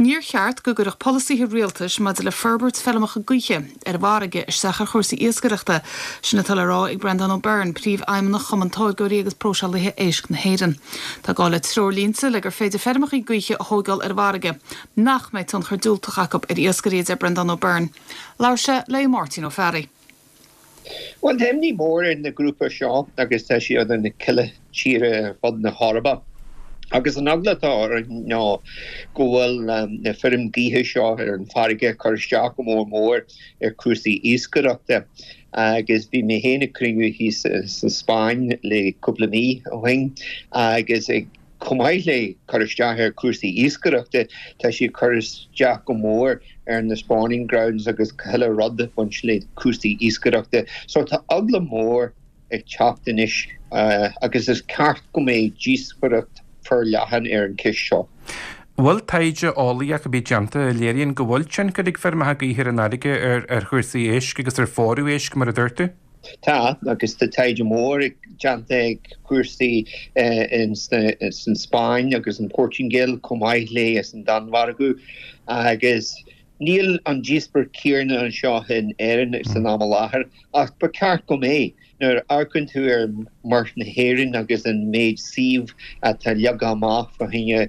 Níor cheart go gcuirfeadh polasaithe rialtais maidir le forbairt feirmeacha gaoithe ar an bhfarraige isteach ar chúrsaí iascaireachta. Sin atá le rá ag Breandán Ó Beirn, Príomhfheidhmeannach Chumann Táirgeoirí agus Próiseálaithe Éisc na hÉireann. Tá gá le treoirlínte le gur féidir feirmeacha gaoithe a thóigeáil ar an bhfarraige nach mbeidh tionchar diúltach acu ar iascairí, a deir Breandán Ó Beirn. Labhair sé le Máirtín Ó Fearraigh. Bhuel, tá imní mór ar na grúpa seo agus tá siad in chuile tíre ar fud na hEorpa. Agus an eagla atá orainn ná go bhfuil na feirm gaoithe seo ar an bhfarraige ag cur isteach go mór mór ar chúrsaí iascaireachta. Agus bhí mé féin ag cruinniú thíos sa Spáinn le cúpla mí ó shin agus ag Chomh maith le cur isteach ar chúrsaí iascaireachta, tá sí ag cur isteach go mór ar na spawning grounds agus chuile rud ag baint le cúrsaí iascaireachta. So tá eagla mór ag teacht anois agus is ceart go mbeidh díospóireacht forleathan ar an cheist seo. Bhfuil taighde eolaíoch ar bith déanta a léiríonn go bhfuil tionchar ag feirmeacha gaoithe ar an fharraige ar chúrsaí éisc agus ar phórú éisc, mar a dúirt tú? Tá, agus tá taighde mór déanta ag cúrsaí san Spáinn agus an Portaingéil chomh maith le san Danmhairg agus níl an díospóireacht céanna anseo in Éirinn san am i láthair ach ba cheart go mbeadh. Nuair a amharcann tú ar Muir na hÉireann agus an méid suíomh atá leagtha amach fá choinne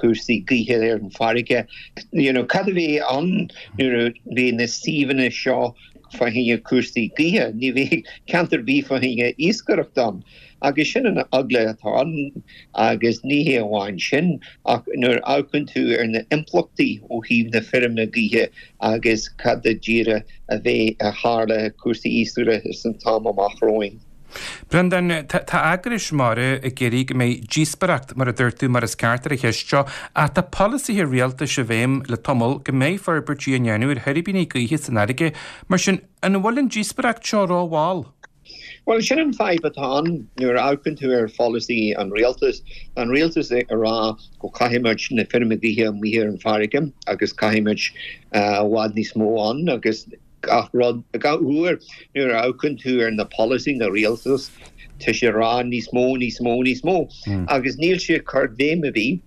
cúrsaí gaoithe ar an bhfarraige, you know, cad a bheidh ann nuair a bheidh na suíomhanna seo fá choinne cúrsaí gaoithe. Ní bheidh ceantar ar bith fá choinne iascaireacht ann. Agus sin an eagla atá ann agus ní hé amháin sin ach nuair a amharcann tú ar na impleachtaí ó thaobh na feirme gaoithe agus cad go díreach a bheidh a tharla cúrsaí iascaireachta san t-am amach romhainn. Breandán, tá eagrais mara ag iarraidh go mbeidh díospóireacht, mar a dúirt tú, mar is ceart ar an cheist seo, ach tá polasaithe rialtais i bhfeidhm le tamall go mbeidh forbairtí á ndéanamh ar thuirbíní gaoithe san fharraige. Mar sin, an bhfuil an díospóireacht seo rómhall? Bhuel, sin an fadhb atá ann nuair a amharcann tú ar pholasaí an rialtais. Tá an rialtas ag rá go caithfidh muid na feirme gaoithe amuigh ar an bhfarraige agus caithfidh muid i bhfad níos mó ann agus Gach rud, gach uair nuair a amharcann tú ar na polasaí na rialtas, tá sé ag rá níos mó, níos mó, níos mó. Agus níl sé ag cur béim ar bith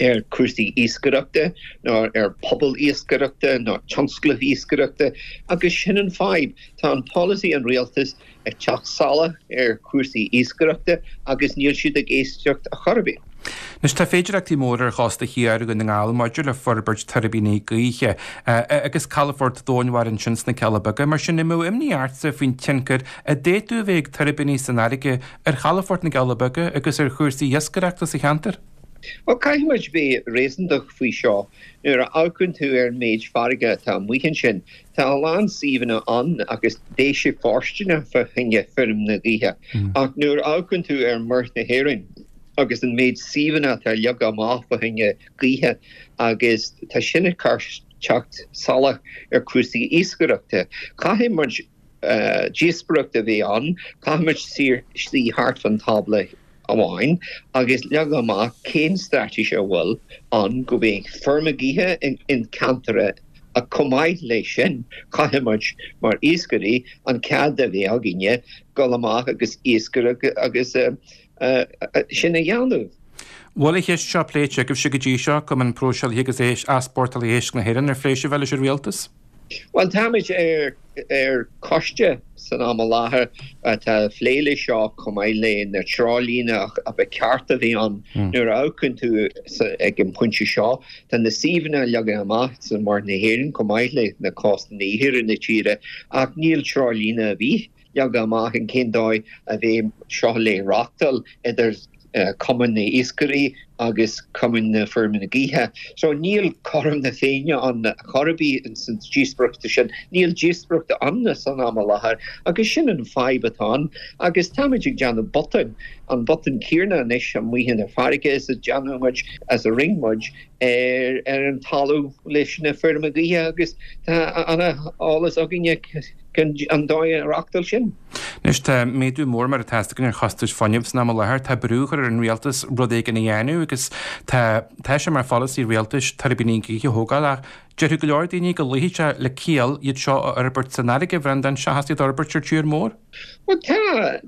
ar cúrsaí iascaireachta ná ar pobal iascaireachta ná tionsclaimh iascaireachta agus sin an fadhb. Tá an polasaí an rialtas ag teacht salach ar chúrsaí iascaireachta agus níl siad ag éisteacht a chor ar bith. Anois tá féidireachtaí móra ar chósta thiar Dhún na nGall maidir le forbairt tuirbíní gaoithe agus calafort domhainmhara ansin sna Cealla Beaga. Mar sin, an mbeadh imní ortsa faoin tionchar a d'fhéadfadh a bheith ag tuirbíní san fharraige ar chalafort na gCealla Beaga agus ar chúrsaí iascaireachta sa cheantar? Bhuel, caithfidh muid bheith réasúntach faoi seo. Nuair a amharcann tú ar an méid farraige atá amuigh ansin, Tá a lán suíomhanna ann agus beidh sé fóirsteanach fá choinne feirm na gaoithe. Ach nuair a amharcann tú ar Muir na hÉireann agus an méid suíomhanna atá leagtha amach fá choinne gaoithe agus tá sin ag cur teacht salach ar cúrsaí iascaireachta. Caithfidh muid díospóireacht a bheith ann, caithfidh muid suí thart fán tábla amháin agus leagadh amach cén straitéis a bhfuil ann go mbeidh feirme gaoithe in ceantar ach chomh maith leis sin caithfidh muid mar iascairí an cead a bheith againne dul amach agus iascaireacht agus sin a dhéanamh. Bhfuil an cheist seo pléite agaibhse go dtí seo, Cumann Próiseálaithe agus Easpórtálaithe Éisc na hÉireann, ar phléigh sibh é leis an Rialtas? Bhuel, táimid ar choiste san am i láthair atá ag plé leis seo chomh maith le na treoirlíne a ba cheart a bheith ann. Nuair a amharcann tú ag an pointe seo, tá na suíomhanna leagtha amach sa Mhuir na hÉireann chomh maith le na cósta na iarthar na tíre ach níl treoirlíne ar bith leagtha amach in cén dóigh a bheidh seo le reachtáil idir Cumann na nIascairí agus Cumann na Feirmeanna Gaoithe. So níl cothrom na Féinne ann chor ar bith ins an díospóireacht sin. Níl díospóireacht ann san am i láthair agus sin an fadhb atá ann agus táimid ag déanamh botúin, an botún céanna anois amuigh in an farraige is a déanann muid, as a rinne muid ar ar an talamh leis na feirme gaoithe agus tá ana eolas againne an dóigh a reachtáil sin. Anois tá méadú mór mar atá a fhios againn ar chostais fuinnimh san am i láthair. Tá brú á chur ar an rialtas rud éigin a dhéanamh agus tá tá sé mar pholasaí rialtais tuirbíní gaoithe a thógáil ach déarfadh go leor daoine go luífeadh sé le ciall iad seo a fhorbairt san fharraige, a Bhreandáin, seachas iad a fhorbairt ar tír mór. Bhuel tá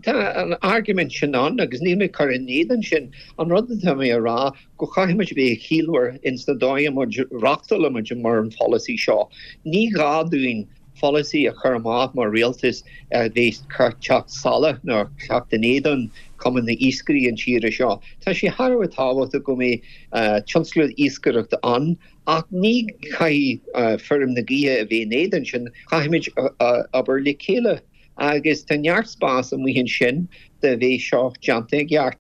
tá an argument sin ann agus níl mé ag cur in éadan sin. An rud atá mé a rá go chaithfidh muid a bheith ciallmhar ins na dóigh a muid reachtálaimid mar an pholasaí seo. Ní gá dúinn pholasaí a chur amach mar rialtas a bheas ag teacht salach nó teacht in éadan Cumann na Iascairí an tíre seo. Tá sé thar a bheith tábhachtach go mbeidh tionscal iascaireachta ann ach ní chaithfidh feirm na gaoithe a bheith in éadan sin, caithfimid obair le chéile agus tá neart spás amuigh ansin do bheith seo déanta i gceart.